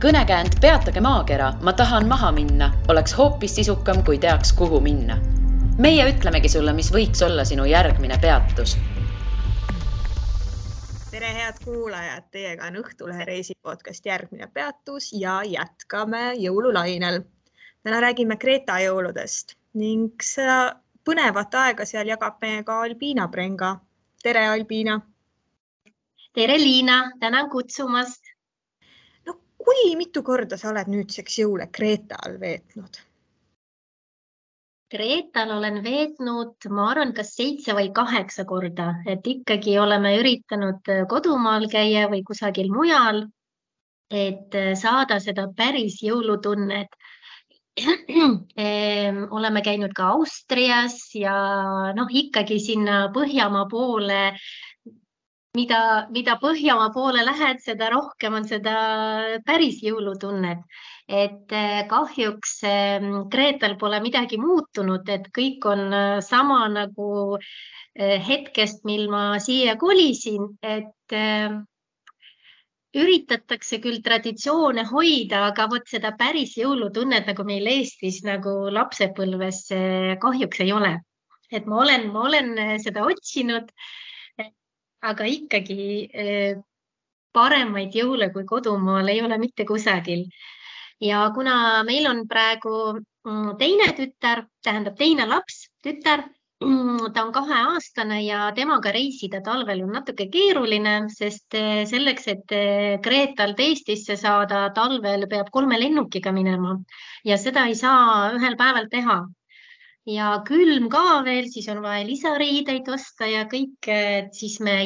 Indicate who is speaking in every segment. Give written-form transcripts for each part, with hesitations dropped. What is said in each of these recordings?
Speaker 1: Kõnekäänd Peatage maakera, ma tahan maha minna, oleks hoopis sisukam, kui teaks, kuhu minna. Meie ütlemegi sulle, mis võiks olla sinu järgmine peatus.
Speaker 2: Tere head kuulajad, teiega on Õhtulehe reisipodcast järgmine peatus ja jätkame jõululainel. Täna räägime Kreeta jõuludest ning seda põnevat aega seal jagab meiega Albiina Prenga. Tere Albiina!
Speaker 3: Tere Liina, tänan kutsumast!
Speaker 2: No kui mitu korda sa oled nüüdseks jõule Kreetal veetnud?
Speaker 3: Kreetal olen veetnud, ma arvan, kas 7 või 8 korda, et ikkagi oleme üritanud kodumaal käia või kusagil mujal, et saada seda päris jõulutunnet. Oleme käinud ka Austrias ja ikkagi sinna Põhjamaa poole, mida Põhjamaa poole lähed, seda rohkem on seda päris jõulutunnet. Et kahjuks Kreetal pole midagi muutunud, et kõik on sama nagu hetkest, mil ma siia kolisin, et üritatakse küll traditsioone hoida, aga vot seda päris jõulutunnet nagu meil Eestis nagu lapsepõlves kahjuks ei ole. Et ma olen seda otsinud, aga ikkagi paremaid jõule kui kodumaal ei ole mitte kusagil. Ja kuna meil on praegu teine tütar, tähendab teine laps, tütar, ta on 2-aastane ja temaga reisida talvel on natuke keeruline, sest selleks, et Kreetalt Eestisse saada talvel peab 3 lennukiga minema ja seda ei saa ühel päeval teha. Ja külm ka veel, siis on vaja lisariideid osta ja kõik, siis me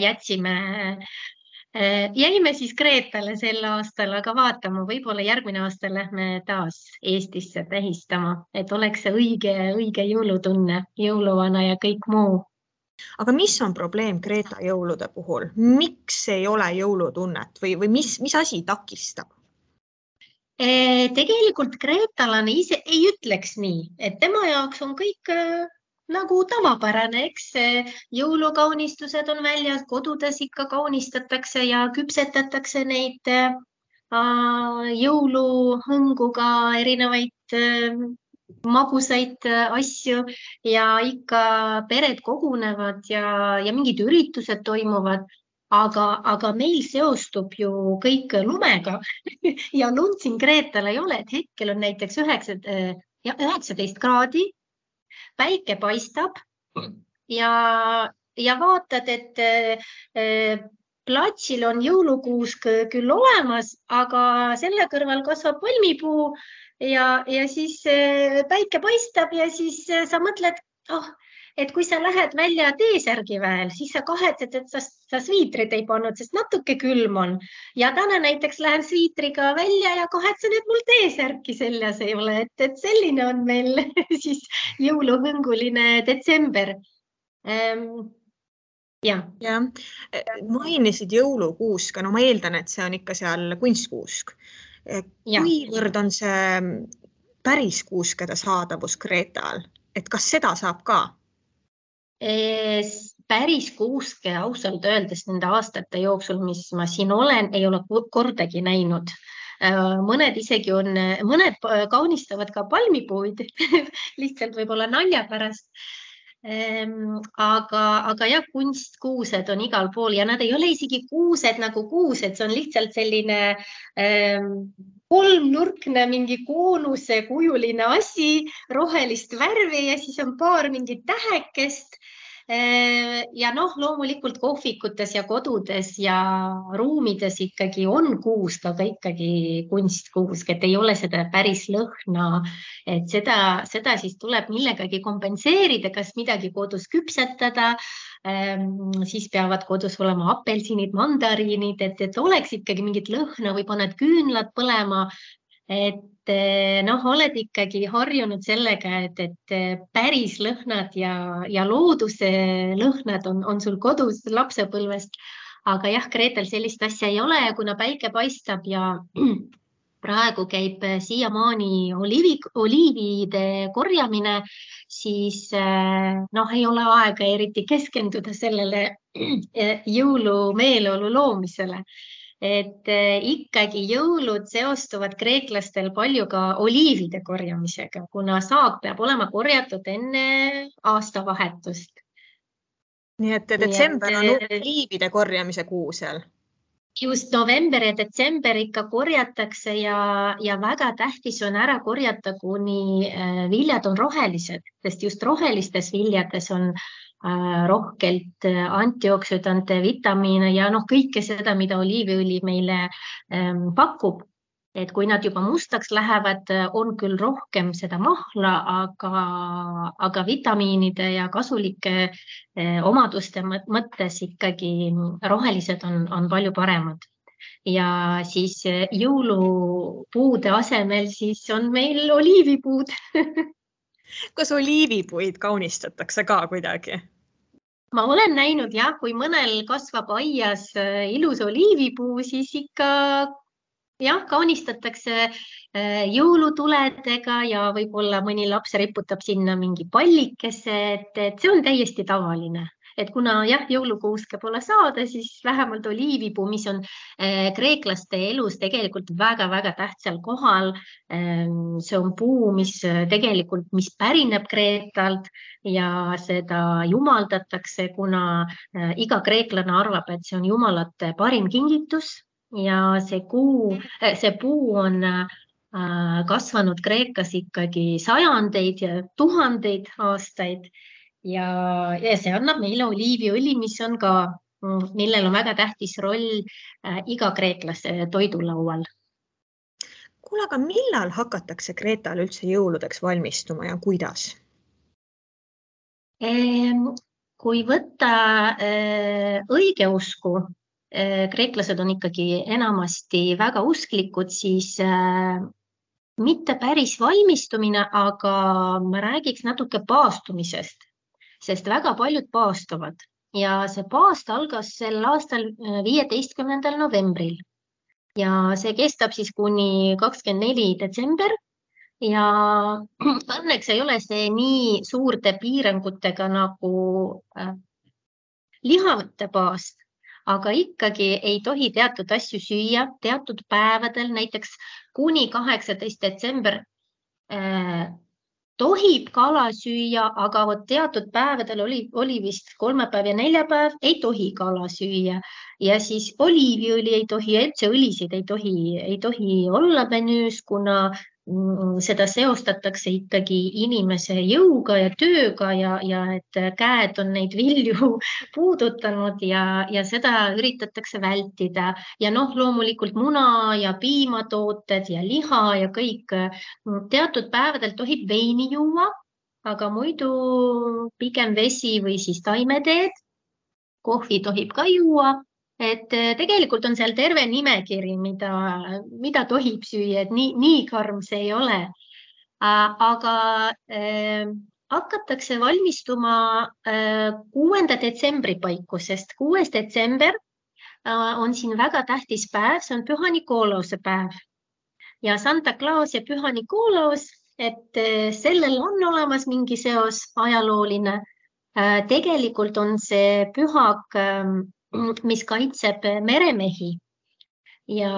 Speaker 3: jäime siis Kreetale sel aastal, aga vaatame, võib-olla järgmine aasta lähme taas Eestisse tähistama, et oleks see õige jõulutunne, jõuluvana ja kõik muu.
Speaker 2: Aga mis on probleem Kreeta jõulude puhul? Miks ei ole jõulutunnet või mis asi takistab?
Speaker 3: Tegelikult kreetalane ise ei ütleks nii, et tema jaoks on kõik nagu tavapärane, eks jõulukaunistused on väljas, kodudes ikka kaunistatakse ja küpsetatakse neid jõuluhõnguga erinevaid magusaid asju ja ikka pered kogunevad ja mingid üritused toimuvad, aga meil seostub ju kõik lumega ja lund siin Kreetal ei ole, et hetkel on näiteks 19 kraadi, päike paistab ja vaatad, et platsil on jõulukuusk küll olemas, aga selle kõrval kasvab palmipuu ja siis päike paistab ja siis sa mõtled, et kui sa lähed välja T-särgi väel, siis sa kahetsed, et sa sviitrid ei pannud, sest natuke külm on. Ja täna näiteks lähen sviitriga välja ja kahetsen, et mul T-särki seljas ei ole. Et selline on meil siis jõuluhõnguline detsember.
Speaker 2: Ja. Mainisid jõulukuuska, no ma eeldan, et see on ikka seal kunstkuusk. Kuivõrd on see päris kuuskede saadavus Kreetal? Et kas seda saab ka?
Speaker 3: Päris kuuske ausalt öeldes nende aastate jooksul, mis ma siin olen, ei ole kordagi näinud. Mõned isegi mõned kaunistavad ka palmipuid, lihtsalt võib-olla nalja pärast. Aga jah, kunstkuused on igal pool ja nad ei ole isegi kuused nagu kuused, see on lihtsalt selline kolmnurkne mingi koonuse kujuline asi, rohelist värvi ja siis on paar mingit tähekest. Ja loomulikult kohvikutes ja kodudes ja ruumides ikkagi on kuusk, aga ikkagi kunstkuusk, et ei ole seda päris lõhna, et seda siis tuleb millegagi kompenseerida, kas midagi kodus küpsetada, siis peavad kodus olema apelsinid, mandariinid, et oleks ikkagi mingit lõhna või paned küünlad põlema, et oled ikkagi harjunud sellega, et päris lõhnad ja looduse lõhnad on sul kodus lapsepõlvest, aga jah, Kreetal sellist asja ei ole, kuna päike paistab ja praegu käib siiamaani oliivide korjamine, siis ei ole aega eriti keskenduda sellele jõulumeeleolu loomisele. et ikkagi jõulud seostuvad kreeklastel palju ka oliivide korjamisega, kuna saak peab olema korjatud enne aastavahetust.
Speaker 2: Nii et detsember on oliivide korjamise kuu seal.
Speaker 3: Just november ja detsember ikka korjatakse ja väga tähtis on ära korjata, kuni viljad on rohelised, sest just rohelistes viljades on rohkelt antioksüdante, vitamiine ja kõike seda, mida oliiviõli meile pakub. Et kui nad juba mustaks lähevad, on küll rohkem seda mahla, aga vitamiinide ja kasulike omaduste mõttes ikkagi rohelised on palju paremad. Ja siis jõulupuude asemel siis on meil oliivipuud.
Speaker 2: Kas oliivipuid kaunistatakse ka kuidagi?
Speaker 3: Ma olen näinud kui mõnel kasvab aias ilus oliivipuu, siis ikka kaunistatakse jõulutuledega ja võib-olla mõni laps riputab sinna mingi pallikese, et see on täiesti tavaline. Et kuna jõulukuuske pole saada, siis vähemalt oliivipuu, mis on kreeklaste elus tegelikult väga-väga tähtsal kohal. See on puu, mis pärineb Kreetalt ja seda jumaldatakse, kuna iga kreeklane arvab, et see on jumalate parim kingitus. Ja see puu on kasvanud Kreekas ikkagi sajandeid ja tuhandeid aastaid ja see annab meile oliiviõli, mis on ka, millel on väga tähtis roll iga kreeklase toidulaual.
Speaker 2: Kuule, aga millal hakatakse Kreetal üldse jõuludeks valmistuma ja kuidas?
Speaker 3: Kui võtta õigeusku, kreeklased on ikkagi enamasti väga usklikud, siis mitte päris valmistumine, aga ma räägiks natuke paastumisest, sest väga paljud paastuvad ja see paast algas sel aastal 15. novembril ja see kestab siis kuni 24. detsember ja õnneks ei ole see nii suurte piirangutega nagu lihavõtte paast. Aga ikkagi ei tohi teatud asju süüa teatud päevadel, näiteks kuni 18. detsember tohib kala süüa, aga teatud päevadel oli vist kolmapäev ja neljapäev, ei tohi kala süüa. Ja siis oliiviõli ei tohi, üldse õlisid ei tohi olla menüüs, kuna seda seostatakse ikkagi inimese jõuga ja tööga ja et käed on neid vilju puudutanud ja seda üritatakse vältida. Ja loomulikult muna ja piimatooted ja liha ja kõik. Teatud päevadel tohib veini juua, aga muidu pigem vesi või siis taimeteed. Kohvi tohib ka juua. Et tegelikult on seal terve nimekiri, mida tohib süüa, et nii karm see ei ole. Aga hakatakse valmistuma 6. detsembri paiku, sest 6. detsember on siin väga tähtis päev, see on Püha Nikolause päev. Ja Santa Claus ja Püha Nikolaus, et sellel on olemas mingi seos ajalooline. Tegelikult on see pühak, mis kaitseb meremehi ja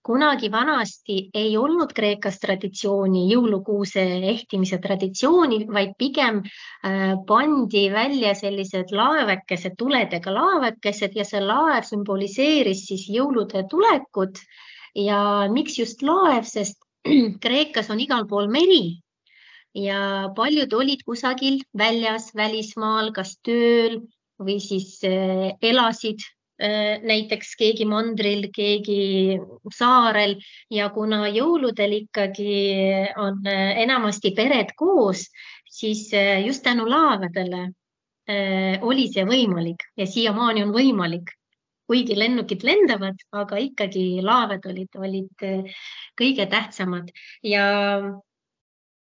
Speaker 3: kunagi vanasti ei olnud Kreekas traditsiooni, jõulukuuse ehtimise traditsiooni, vaid pigem pandi välja sellised laevekesed, tuledega laevekesed ja see laev symboliseeris siis jõulude tulekut ja miks just laev, sest Kreekas on igal pool meri ja paljud olid kusagil väljas, välismaal, kas tööl või siis elasid näiteks keegi mandril, keegi saarel ja kuna jõuludel ikkagi on enamasti pered koos, siis just tänu laevadele oli see võimalik ja siiamaani on võimalik. Kuigi lennukid lendavad, aga ikkagi laevad olid kõige tähtsamad ja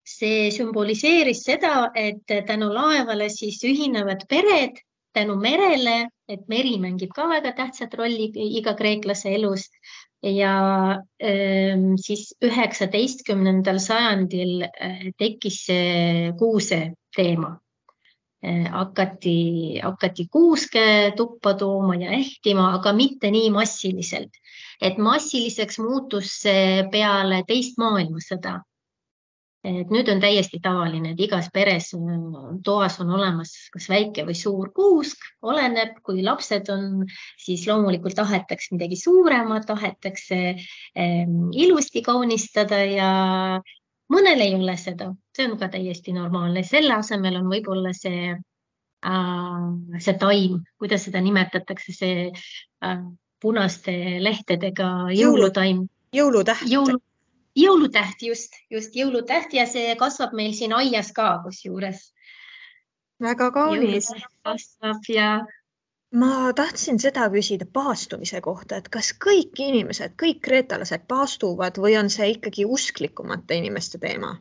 Speaker 3: see symboliseeris seda, et tänu laevale siis ühinevad pered, tänu merele, et meri mängib ka väga tähtsat rolli iga kreeklase elus ja siis 19. sajandil tekkis see kuuse teema. hakati kuuske tuppa tooma ja ehtima, aga mitte nii massiliselt. Et massiliseks muutus see peale teist maailmasõda. Et nüüd on täiesti tavaline, et igas peres toas on olemas kas väike või suur kuusk, oleneb, kui lapsed on, siis loomulikult tahetakse midagi suuremat, tahetakse ilusti kaunistada ja mõnel ei ole seda. See on ka täiesti normaalne. Selle asemel on võib-olla see taim, kuidas seda nimetatakse, see punaste lehtedega jõulutaim.
Speaker 2: Jõulutäht.
Speaker 3: Jõulutäht, just jõulutäht ja see kasvab meil siin aias ka kusjuures.
Speaker 2: Väga kaunis.
Speaker 3: Kasvab ja...
Speaker 2: Ma tahtsin seda küsida paastumise kohta, et kas kõik inimesed, kõik kreetalased paastuvad või on see ikkagi usklikumate inimeste teema?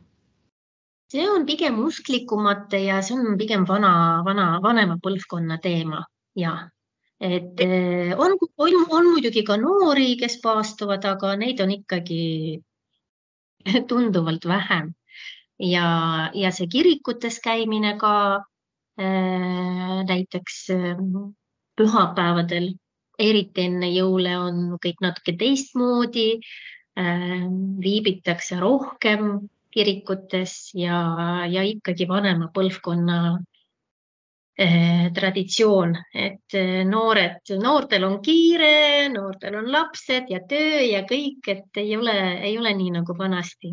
Speaker 3: See on pigem usklikumate ja see on pigem vanema põlvkonna teema. Ja. Et on muidugi ka noori, kes paastuvad, aga neid on ikkagi tunduvalt vähem. Ja see kirikutes käimine ka näiteks pühapäevadel, eriti enne jõule on kõik natuke teistmoodi, viibitakse rohkem kirikutes ja ikkagi vanema põlvkonna traditsioon, et noortel on kiire, noortel on lapsed ja töö ja kõik, et ei ole nii nagu vanasti.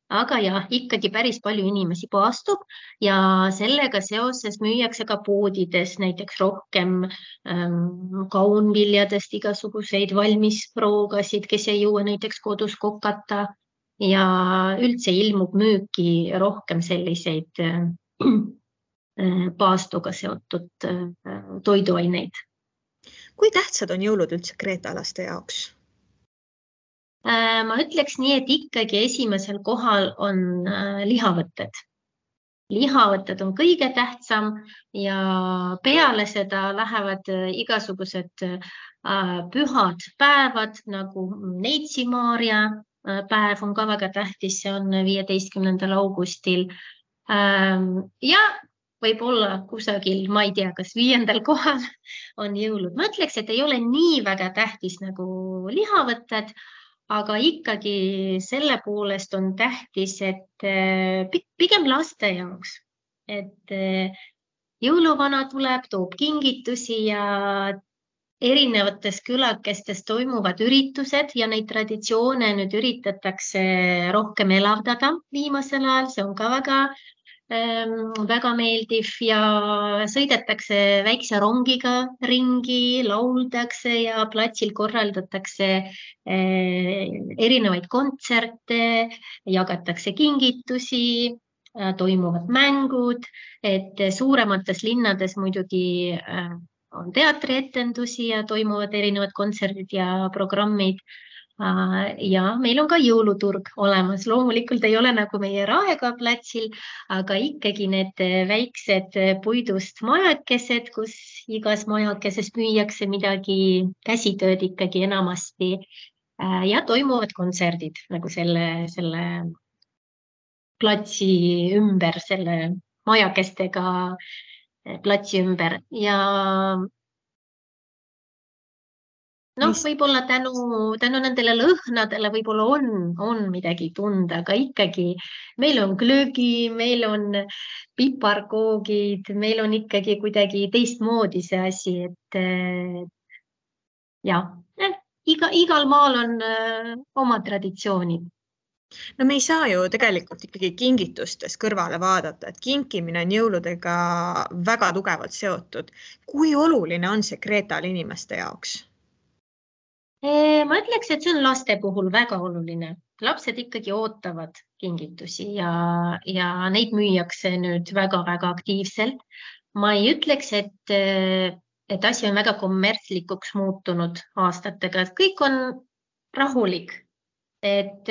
Speaker 3: Aga jah, ikkagi päris palju inimesi paastub ja sellega seoses müüakse ka poodides näiteks rohkem kaunviljadest igasuguseid valmisproogasid, kes ei jõua näiteks kodus kokata ja üldse ilmub müüki rohkem selliseid paastuga seotud toiduaineid.
Speaker 2: Kui tähtsad on jõulud üldse kreetalaste jaoks?
Speaker 3: Ma ütleks nii, et ikkagi esimesel kohal on lihavõtted. Lihavõtted on kõige tähtsam ja peale seda lähevad igasugused pühad päevad, nagu Neitsi Maarja päev on ka väga tähtis, see on 15. augustil. Ja võib-olla kusagil, ma ei tea, kas 5. kohal on jõulud. Ma ütleks, et ei ole nii väga tähtis nagu lihavõtted, aga ikkagi selle poolest on tähtis, et pigem laste jaoks, et jõuluvana tuleb, toob kingitusi ja erinevates külakestes toimuvad üritused ja neid traditsioone nüüd üritatakse rohkem elavdada viimasel ajal, see on ka väga meeldiv ja sõidetakse väikse rongiga ringi, lauldakse ja platsil korraldatakse erinevaid kontserte, jagatakse kingitusi, toimuvad mängud, et suuremates linnades muidugi on teatrietendusi ja toimuvad erinevad kontserdid ja programmid. Ja meil on ka jõuluturg olemas. Loomulikult ei ole nagu meie Raekoja platsil, aga ikkagi need väiksed puidust majakesed, kus igas majakeses müüakse midagi käsitööd ikkagi enamasti ja toimuvad kontserdid nagu selle platsi ümber, selle majakestega platsi ümber ja võib-olla tänu nendele lõhnadele võib-olla on midagi tunda, aga ikkagi meil on glögi, meil on piparkoogid, meil on ikkagi kuidagi teistmoodi see asi, et igal maal on oma traditsioonid.
Speaker 2: No me ei saa ju tegelikult ikkagi kingitustes kõrvale vaadata, et kinkimine on jõuludega väga tugevalt seotud. Kui oluline on see Kreetal inimeste jaoks?
Speaker 3: Ma ütleks, et see on laste puhul väga oluline. Lapsed ikkagi ootavad kingitusi ja neid müüakse nüüd väga-väga aktiivselt. Ma ei ütleks, et asi on väga kommertslikuks muutunud aastatega, et kõik on rahulik, et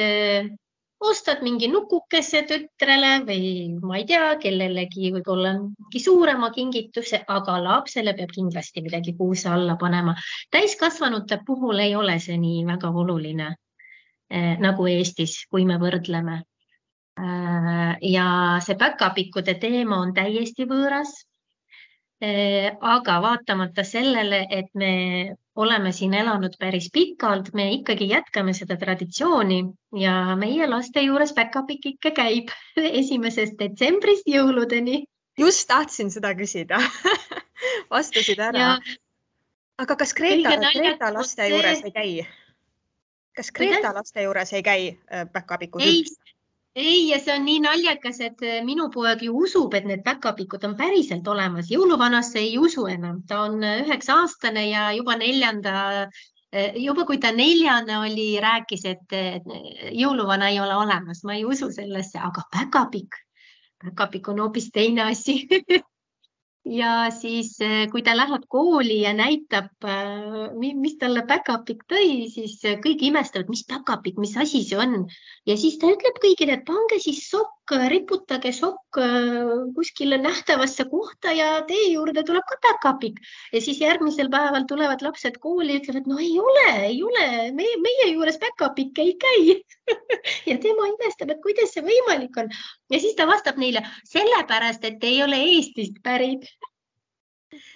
Speaker 3: ostad mingi nukukese tütrele või ma ei tea, kellelegi võib-olla mingi suurema kingituse, aga lapsele peab kindlasti midagi kuuse alla panema. Täiskasvanute puhul ei ole see nii väga oluline nagu Eestis, kui me võrdleme. Ja see päkapikkude teema on täiesti võõras. Aga vaatamata sellele, et me oleme siin elanud päris pikalt, me ikkagi jätkame seda traditsiooni ja meie laste juures päkapikk ikka käib 1. detsembrist jõuludeni.
Speaker 2: Just tahtsin seda küsida. Vastasid ära.
Speaker 3: Ja
Speaker 2: Aga kas
Speaker 3: kõige
Speaker 2: Greta
Speaker 3: naljakam on
Speaker 2: laste
Speaker 3: see-
Speaker 2: juures ei käi? Kas Greta
Speaker 3: Kuidas?
Speaker 2: laste juures ei käi päkapikud
Speaker 3: Ei,
Speaker 2: üldse?
Speaker 3: ei, ja see on nii naljakas, et minu poeg ju usub, et need päkapikud on päriselt olemas. Jõuluvanasse ei usu enam. Ta on 9-aastane ja juba kui ta 4. oli, rääkis, et jõuluvana ei ole olemas. Ma ei usu sellesse, aga päkapikk on hoopis teine asi. Ja siis, kui ta läheb kooli ja näitab, mis talle päkapikk tõi, siis kõik imestavad, mis päkapikk, mis asi see on. Ja siis ta ütleb kõigile, et pange siis sokk, riputage sokk kuskile nähtavasse kohta ja teie juurde tuleb ka päkapikk. Ja siis järgmisel päeval tulevad lapsed kooli ja ütlevad, no ei ole, meie juures päkapikk ei käi. Ja tema imestab, et kuidas see võimalik on. Ja siis ta vastab neile, sellepärast, et ei ole Eestist pärit.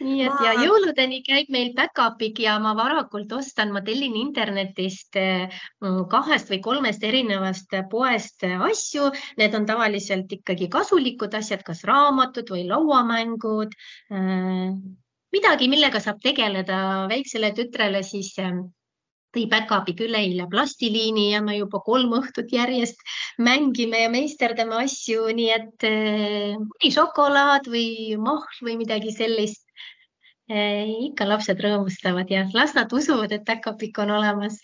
Speaker 3: Nii et ja jõuludeni käib meil päkapikk ja ma varakult ma tellin internetist 2 või 3 erinevast poest asju. Need on tavaliselt ikkagi kasulikud asjad, kas raamatud või lauamängud. Midagi, millega saab tegeleda väiksele tütrele, siis tõi päkapikk üleeile plastiliini ja me juba 3 õhtut järjest mängime ja meisterdame asju, nii et mõni šokolaad või mahl või midagi sellist. Ikka lapsed rõõmustavad ja las nad usuvad, et päkapikk on olemas.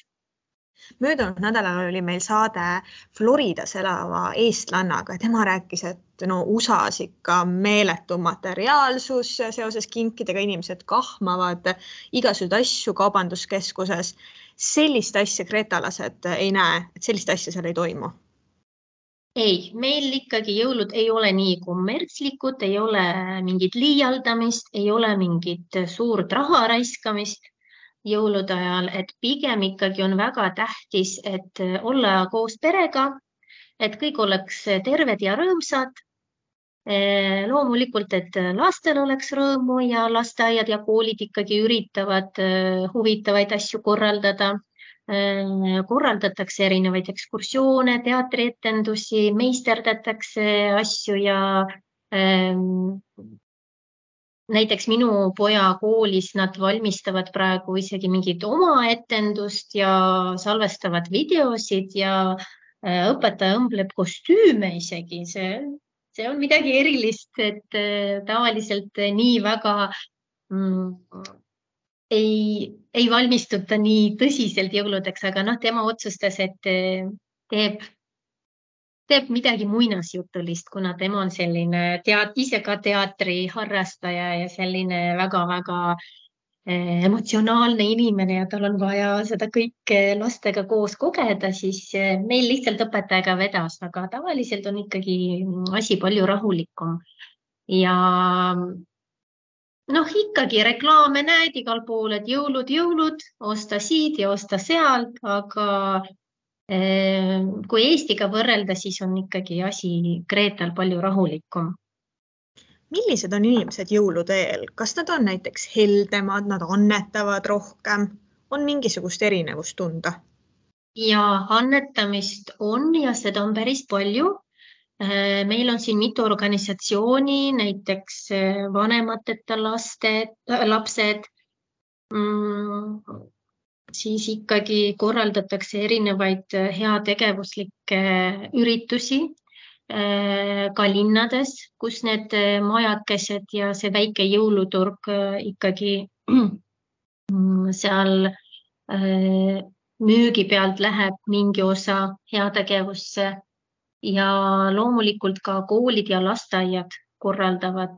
Speaker 2: Möödunud nädalal oli meil saade Floridas elava eestlannaga. Tema rääkis, et USA-s ikka meeletu materiaalsus seoses kinkidega, inimesed kahmavad igasugused asju kaubanduskeskuses. Sellist asja gretalased ei näe, et sellist asja seal ei toimu.
Speaker 3: Ei, meil ikkagi jõulud ei ole nii kommertslikud, ei ole mingit liialdamist, ei ole mingit suurt raha raiskamist jõulude ajal, et pigem ikkagi on väga tähtis, et olla koos perega, et kõik oleks terved ja rõõmsad. Loomulikult, et lastel oleks rõõmu ja lasteaiad ja koolid ikkagi üritavad huvitavaid asju korraldada. Korraldatakse erinevaid ekskursioone, teatrietendusi, meisterdatakse asju ja näiteks minu poja koolis nad valmistavad praegu isegi mingit oma etendust ja salvestavad videosid ja õpetaja õmbleb kostüüme isegi. See on midagi erilist, et tavaliselt nii väga ei valmistuta nii tõsiselt jõuludeks, aga tema otsustas, et teeb midagi muinasjutulist, kuna tema on selline ise ka teatri harrastaja ja selline väga-väga emotsionaalne inimene ja tal on vaja seda kõike lastega koos kogeda, siis meil lihtsalt õpetajaga vedas, aga tavaliselt on ikkagi asi palju rahulikum. Ja ikkagi reklaame näed igal pool, et jõulud, osta siit ja osta sealt, aga kui Eestiga võrrelda, siis on ikkagi asi Greetal palju rahulikum.
Speaker 2: Millised on inimesed jõulude eel? Kas nad on näiteks heldemad, nad annetavad rohkem? On mingisugust erinevust tunda?
Speaker 3: Ja annetamist on ja seda on päris palju. Meil on siin mitu organisatsiooni, näiteks vanemateta lapsed, siis ikkagi korraldatakse erinevaid heategevuslikke üritusi ka linnades, kus need majakesed ja see väike jõuluturg ikkagi seal müügi pealt läheb mingi osa heategevusse. Ja loomulikult ka koolid ja lasteaiad korraldavad,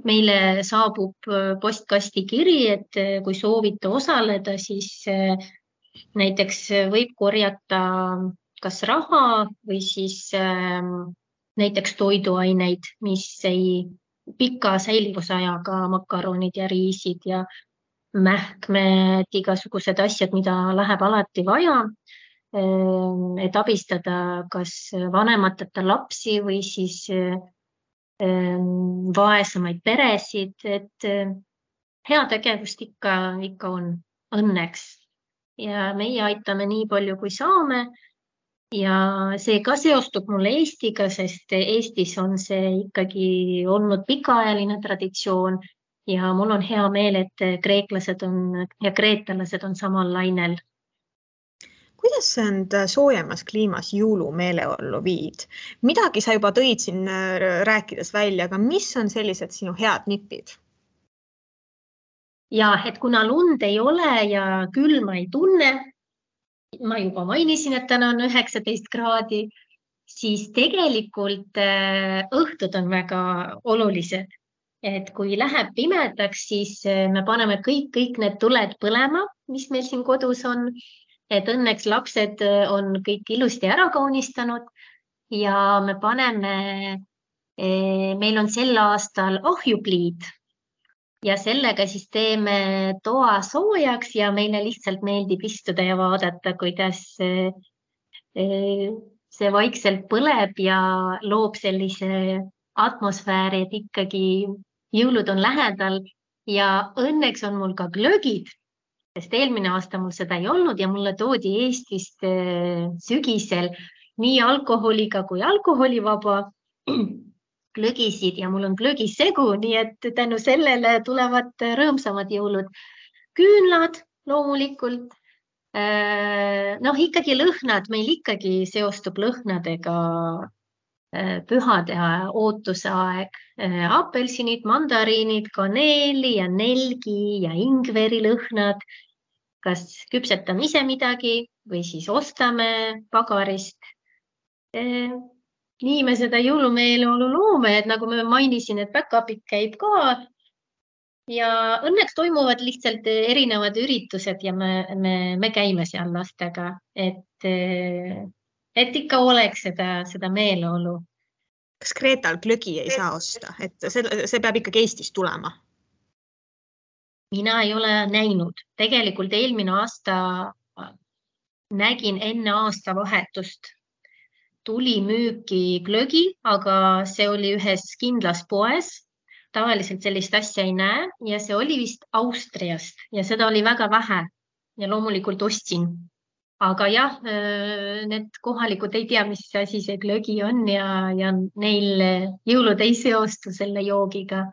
Speaker 3: meile saabub postkasti kiri, et kui soovite osaleda, siis näiteks võib korjata kas raha või siis näiteks toiduaineid, mis ei pika säilivusajaga makaronid ja riisid ja mähkmed, igasugused asjad, mida läheb alati vaja. Et abistada kas vanemateta lapsi või siis vaesemaid peresid, et heategevust ikka on õnneks ja meie aitame nii palju, kui saame. Ja see ka seostub mulle Eestiga, sest Eestis on see ikkagi olnud pikaajaline traditsioon ja mul on hea meel, et kreeklased ja kreetalased on samal lainel.
Speaker 2: Kuidas sa end soojemas kliimas jõulumeeleollu viid? Midagi sa juba tõid siin rääkides välja, aga mis on sellised sinu head nipid?
Speaker 3: Ja, et kuna lund ei ole ja külma ei tunne, ma juba mainisin, et täna on 19 kraadi, siis tegelikult õhtud on väga olulised. Et kui läheb pimedaks, siis me paneme kõik need tuled põlema, mis meil siin kodus on. Et õnneks lapsed on kõik ilusti ära kaunistanud ja me paneme, meil on sel aastal ahjupliid ja sellega siis teeme toa soojaks ja meile lihtsalt meeldib istuda ja vaadata, kuidas see vaikselt põleb ja loob sellise atmosfääri, et ikkagi jõulud on lähedal ja õnneks on mul ka glögid. Sest eelmine aasta mul seda ei olnud ja mulle toodi Eestist sügisel nii alkoholiga kui alkoholivaba glögisid ja mul on glögisegu, nii et tänu sellele tulevad rõõmsamad jõulud. Küünlad loomulikult, ikkagi lõhnad, meil ikkagi seostub lõhnadega pühade ootuse aeg. Apelsinid, mandariinid, kaneeli ja nelgi ja ingveri lõhnad. Kas küpsetame ise midagi või siis ostame pagarist. Nii me seda jõulumeeleolu loome, et nagu me mainisin, et back-up'id käib ka ja õnneks toimuvad lihtsalt erinevad üritused ja me käime seal lastega, et ikka oleks seda meeleolu.
Speaker 2: Kas Kreetal glögi ei saa osta? Et see peab ikkagi Eestist tulema?
Speaker 3: Mina ei ole näinud. Tegelikult eelmine aasta nägin enne aasta vahetust. Tuli müüki glögi, aga see oli ühes kindlas poes. Tavaliselt sellist asja ei näe ja see oli vist Austriast ja seda oli väga vähe ja loomulikult ostsin. Aga jah, need kohalikud ei tea, mis asi see glögi on ja neil jõulud ei seostu selle joogiga.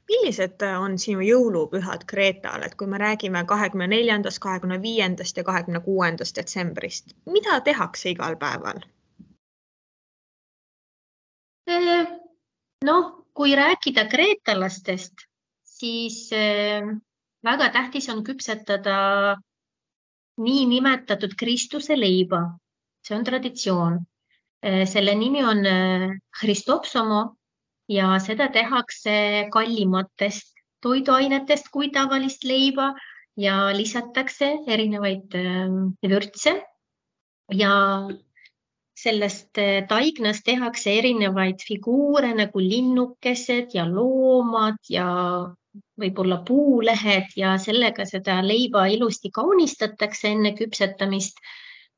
Speaker 2: Millised on sinu jõulupühad Kreetal, et kui me räägime 24., 25. ja 26. detsembrist, mida tehakse igal päeval?
Speaker 3: Kui rääkida kreetalastest, siis väga tähtis on küpsetada nii nimetatud Kristuse leiba. See on traditsioon. Selle nimi on Christopsomo. Ja seda tehakse kallimatest toiduainetest kui tavalist leiba ja lisatakse erinevaid vürtse ja sellest taignast tehakse erinevaid figuure nagu linnukesed ja loomad ja võib-olla puulehed ja sellega seda leiba ilusti kaunistatakse enne küpsetamist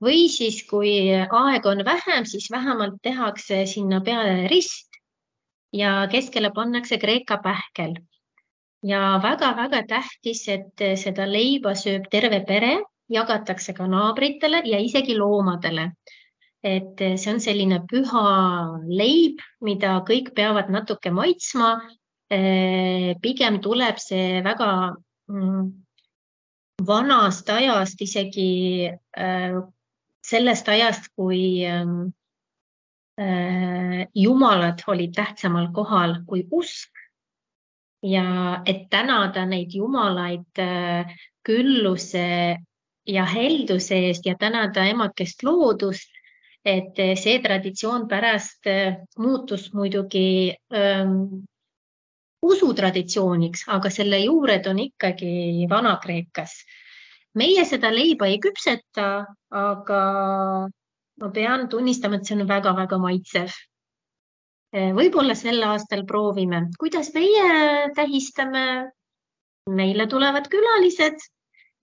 Speaker 3: või siis kui aeg on vähem, siis vähemalt tehakse sinna peale rist ja keskele pannakse Kreeka pähkel. Ja väga-väga tähtis, et seda leiba sööb terve pere, jagatakse ka naabritele ja isegi loomadele. Et see on selline püha leib, mida kõik peavad natuke maitsma. Pigem tuleb see väga vanast ajast, isegi sellest ajast, kui jumalad olid tähtsamal kohal kui usk ja et tänada neid jumalaid külluse ja helduse eest ja tänada emakest loodust, et see traditsioon pärast muutus muidugi usutraditsiooniks, aga selle juured on ikkagi Vana-Kreekas. Meie seda leiba ei küpseta, aga ma pean tunnistama, et see on väga-väga maitsev. Võib-olla sel aastal proovime. Kuidas meie tähistame? Meile tulevad külalised.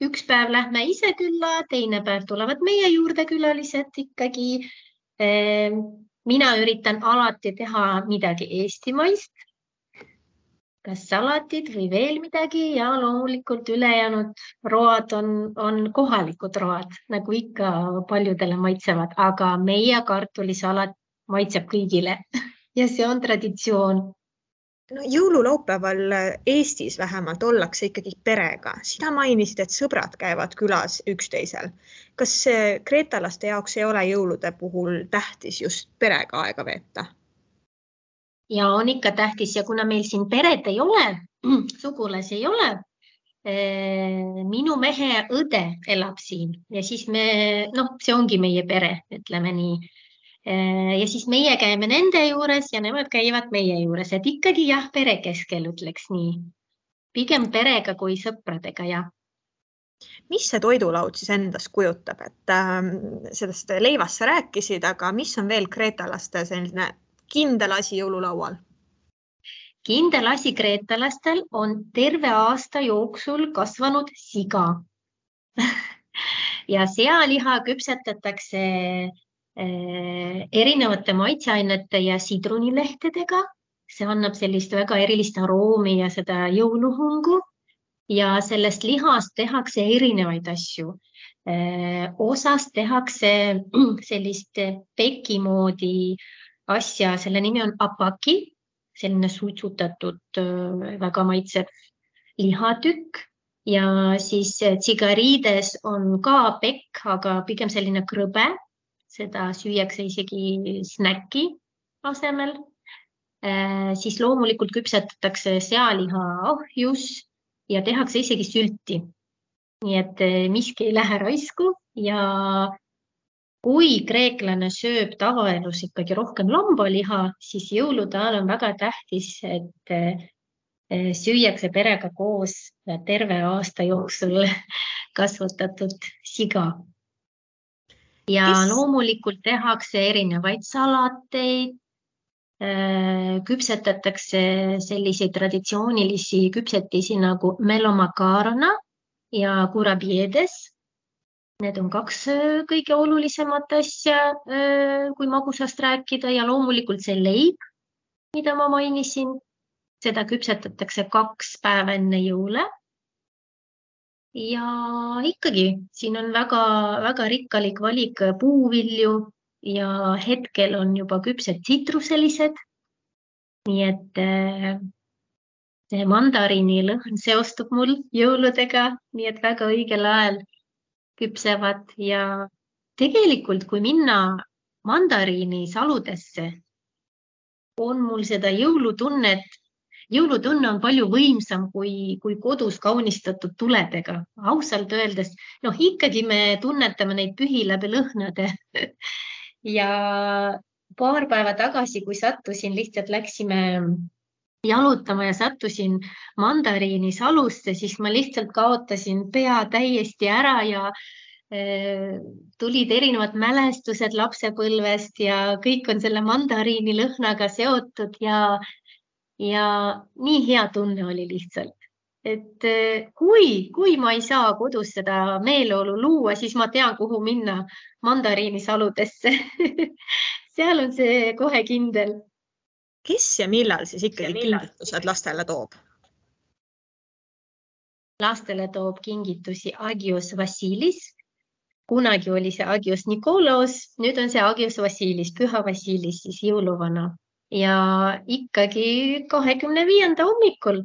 Speaker 3: Üks päev lähme ise külla, teine päev tulevad meie juurde külalised ikkagi. mina üritan alati teha midagi eestimaist, kas salatid või veel midagi ja loomulikult ülejäänud road on kohalikud road, nagu ikka paljudele maitsevad, aga meie kartulisalat maitseb kõigile ja see on traditsioon.
Speaker 2: No, jõululaupäeval Eestis vähemalt ollakse ikkagi perega. Sina mainisid, et sõbrad käivad külas üksteisel. Kas kreetalaste jaoks ei ole jõulude puhul tähtis just perega aega veeta?
Speaker 3: Ja on ikka tähtis ja kuna meil siin peret ei ole, sugulasi ei ole, minu mehe õde elab siin ja siis see ongi meie pere, ütleme nii. Ja siis meie käime nende juures ja nemad käivad meie juures, et ikkagi jah, pere keskel ütleks nii. Pigem perega kui sõpradega, jah.
Speaker 2: Mis see toidulaud siis endast kujutab? Et sellest leivast sa rääkisid, aga mis on veel kreetalaste selline kindel asi jõululaual?
Speaker 3: Kindel asi kreetalastel on terve aasta jooksul kasvanud siga. Ja sealiha küpsetatakse erinevate maitseainete ja sidrunilehtedega. See annab sellist väga erilist aroomi ja seda jõuluhungu ja sellest lihast tehakse erinevaid asju. Osast tehakse sellist peki moodi asja, selle nimi on apaki, selline suitsutatud väga maitsev lihatükk ja siis tsigariides on ka pekk, aga pigem selline krõbe. Seda süüakse isegi snäki asemel. Siis loomulikult küpsetatakse sealiha ahjus ja tehakse isegi sülti. Nii et miski ei lähe raisku ja kui kreeklane sööb tavaelus ikkagi rohkem lambaliha, siis jõulude ajal on väga tähtis, et süüakse perega koos terve aasta jooksul kasvatatud siga. Ja loomulikult tehakse erinevaid salateid, küpsetatakse selliseid traditsioonilisi küpsetisi nagu melomakarona ja kurabiedes. Need on 2 kõige olulisemat asja, kui magusast rääkida ja loomulikult see leib, mida ma mainisin. Seda küpsetatakse 2 päeva enne jõule. Ja ikkagi, siin on väga rikkalik valik puuvilju ja hetkel on juba küpsed tsitruselised. Nii et see mandariini lõhn seostub mul jõuludega, nii et väga õigel ajal küpsevad ja tegelikult, kui minna mandariini saludesse, on mul seda jõulutunnet. Jõulutunne on palju võimsam kui kodus kaunistatud tuledega. Ausalt öeldes, ikkagi me tunnetame neid pühi läbi lõhnade. Ja paar päeva tagasi, kui sattusin, lihtsalt läksime jalutama ja sattusin mandariini salusse, siis ma lihtsalt kaotasin pea täiesti ära ja tulid erinevad mälestused lapsepõlvest ja kõik on selle mandariini lõhnaga seotud ja nii hea tunne oli lihtsalt. Et kui ma ei saa kodus seda meeleolu luua, siis ma tean, kuhu minna mandariini saludesse. Seal on see kohe kindel.
Speaker 2: Kes ja millal siis ikkagi kingitused lastele toob?
Speaker 3: Lastele toob kingitusi Agios Vasilis. Kunagi oli see Agios Nikolaos, nüüd on see Agios Vasilis, Püha Vasilis, siis jõuluvana. Ja ikkagi 25. hommikul.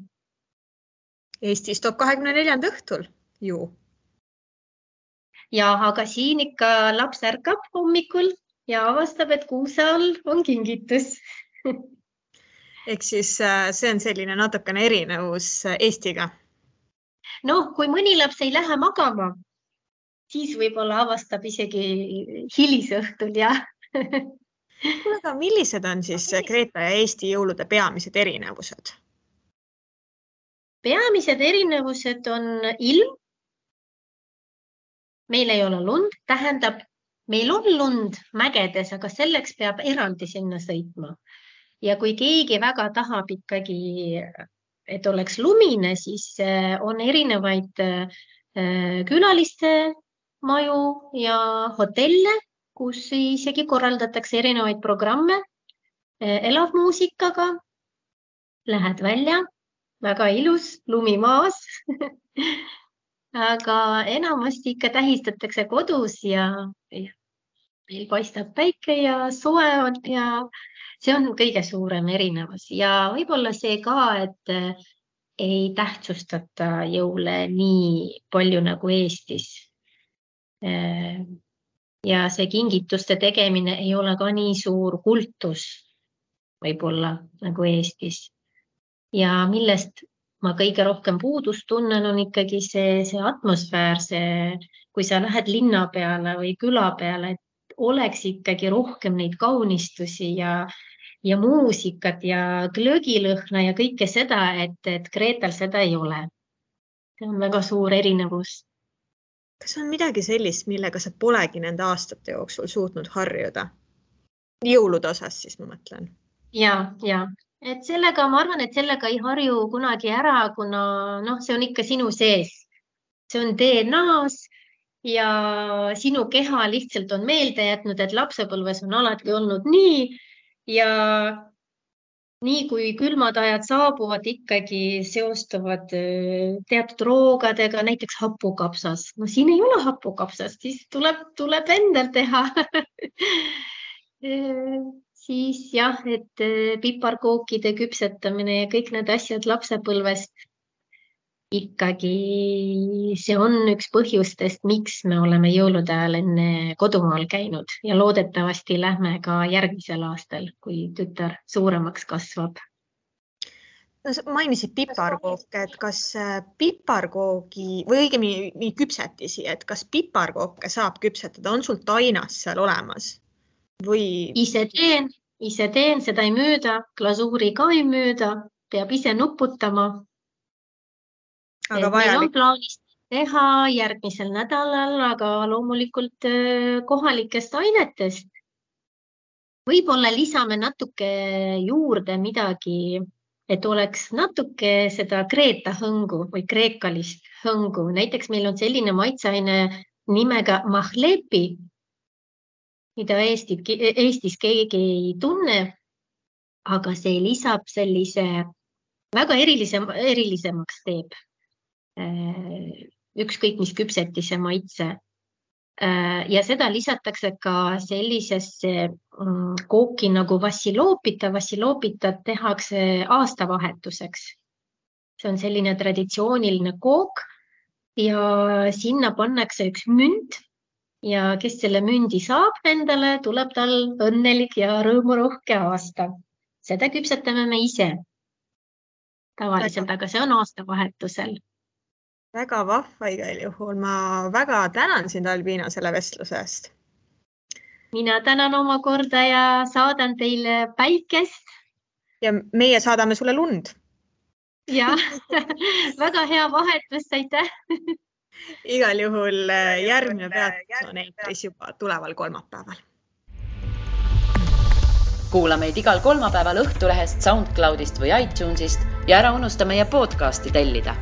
Speaker 2: Eestis toob 24. õhtul ju.
Speaker 3: Ja, aga siin ikka laps ärkab hommikul ja avastab, et kuuse all on kingitus.
Speaker 2: Ehk siis see on selline natukene erinevus Eestiga.
Speaker 3: Kui mõni laps ei lähe magama, siis võib-olla avastab isegi hilisõhtul, jah.
Speaker 2: Aga millised on siis Kreeta ja Eesti jõulude peamised erinevused?
Speaker 3: Peamised erinevused on ilm. Meil ei ole lund, tähendab, meil on lund mägedes, aga selleks peab eraldi sinna sõitma. Ja kui keegi väga tahab ikkagi, et oleks lumine, siis on erinevaid külaliste maju ja hotelle, kus isegi korraldatakse erinevaid programme elavmuusikaga. Lähed välja, väga ilus, lumi maas. Aga enamasti ikka tähistatakse kodus ja meil paistab päike ja soe on ja see on kõige suurem erinevus. Ja võib-olla see ka, et ei tähtsustata jõule nii palju nagu Eestis. Ja see kingituste tegemine ei ole ka nii suur kultus võib-olla nagu Eestis. Ja millest ma kõige rohkem puudust tunnen, on ikkagi see atmosfäär, kui sa lähed linna peale või küla peale, et oleks ikkagi rohkem neid kaunistusi ja muusikat ja glögilõhna ja kõike seda, et Kreetal seda ei ole. See on väga suur erinevus.
Speaker 2: Kas on midagi sellist, millega sa polegi nende aastate jooksul suutnud harjuda? Jõulude osas siis ma mõtlen.
Speaker 3: Ja. Et sellega, ma arvan, et sellega ei harju kunagi ära, kuna see on ikka sinu sees. See on DNA-s ja sinu keha lihtsalt on meelde jätnud, et lapsepõlves on alati olnud nii ja nii kui külmad ajad saabuvad, ikkagi seostuvad teatud roogadega, näiteks hapukapsas. Siin ei ole hapukapsast, siis tuleb endal teha. Siis jah, et piparkookide küpsetamine ja kõik need asjad lapsepõlvest ikkagi see on üks põhjustest, miks me oleme jõulude ajal enne kodumaal käinud ja loodetavasti lähme ka järgmisel aastal, kui tütar suuremaks kasvab.
Speaker 2: Mainisid piparkooke, et kas piparkoogi või õigemini küpsetisi, et kas piparkooke saab küpsetada, on sul tainas seal olemas? Või...
Speaker 3: Ise teen, seda ei müüda, glasuuri ka ei müüda, peab ise nuputama.
Speaker 2: Aga
Speaker 3: meil on plaanis teha järgmisel nädalal, aga loomulikult kohalikest ainetest. Võib-olla lisame natuke juurde midagi, et oleks natuke seda Kreeta hõngu või kreekalist hõngu. Näiteks meil on selline maitseaine nimega mahlepi, mida Eestis keegi ei tunne, aga see lisab sellise väga erilisemaks teeb. Ükskõik mis küpsetise maitse. Ja seda lisatakse ka sellisesse kooki nagu vassiloopita. Vassiloopita tehakse aastavahetuseks. See on selline traditsiooniline kook ja sinna pannakse üks münt. Ja kes selle mündi saab endale, tuleb tal õnnelik ja rõõmurohke aasta. Seda küpsetame me ise tavaliselt, aga see on aastavahetusel.
Speaker 2: Väga vahva igal juhul. Ma väga tänan sind, Albina, selle vestluse eest.
Speaker 3: Mina tänan oma korda ja saadan teile päikest.
Speaker 2: Ja meie saadame sulle lund.
Speaker 3: Ja, väga hea vahetus, aitäh!
Speaker 2: Igal juhul järgmine peatus on eetris juba tuleval kolmapäeval.
Speaker 1: Kuula meid igal kolmapäeval Õhtulehest, SoundCloudist või iTunesist ja ära unusta meie podcasti tellida.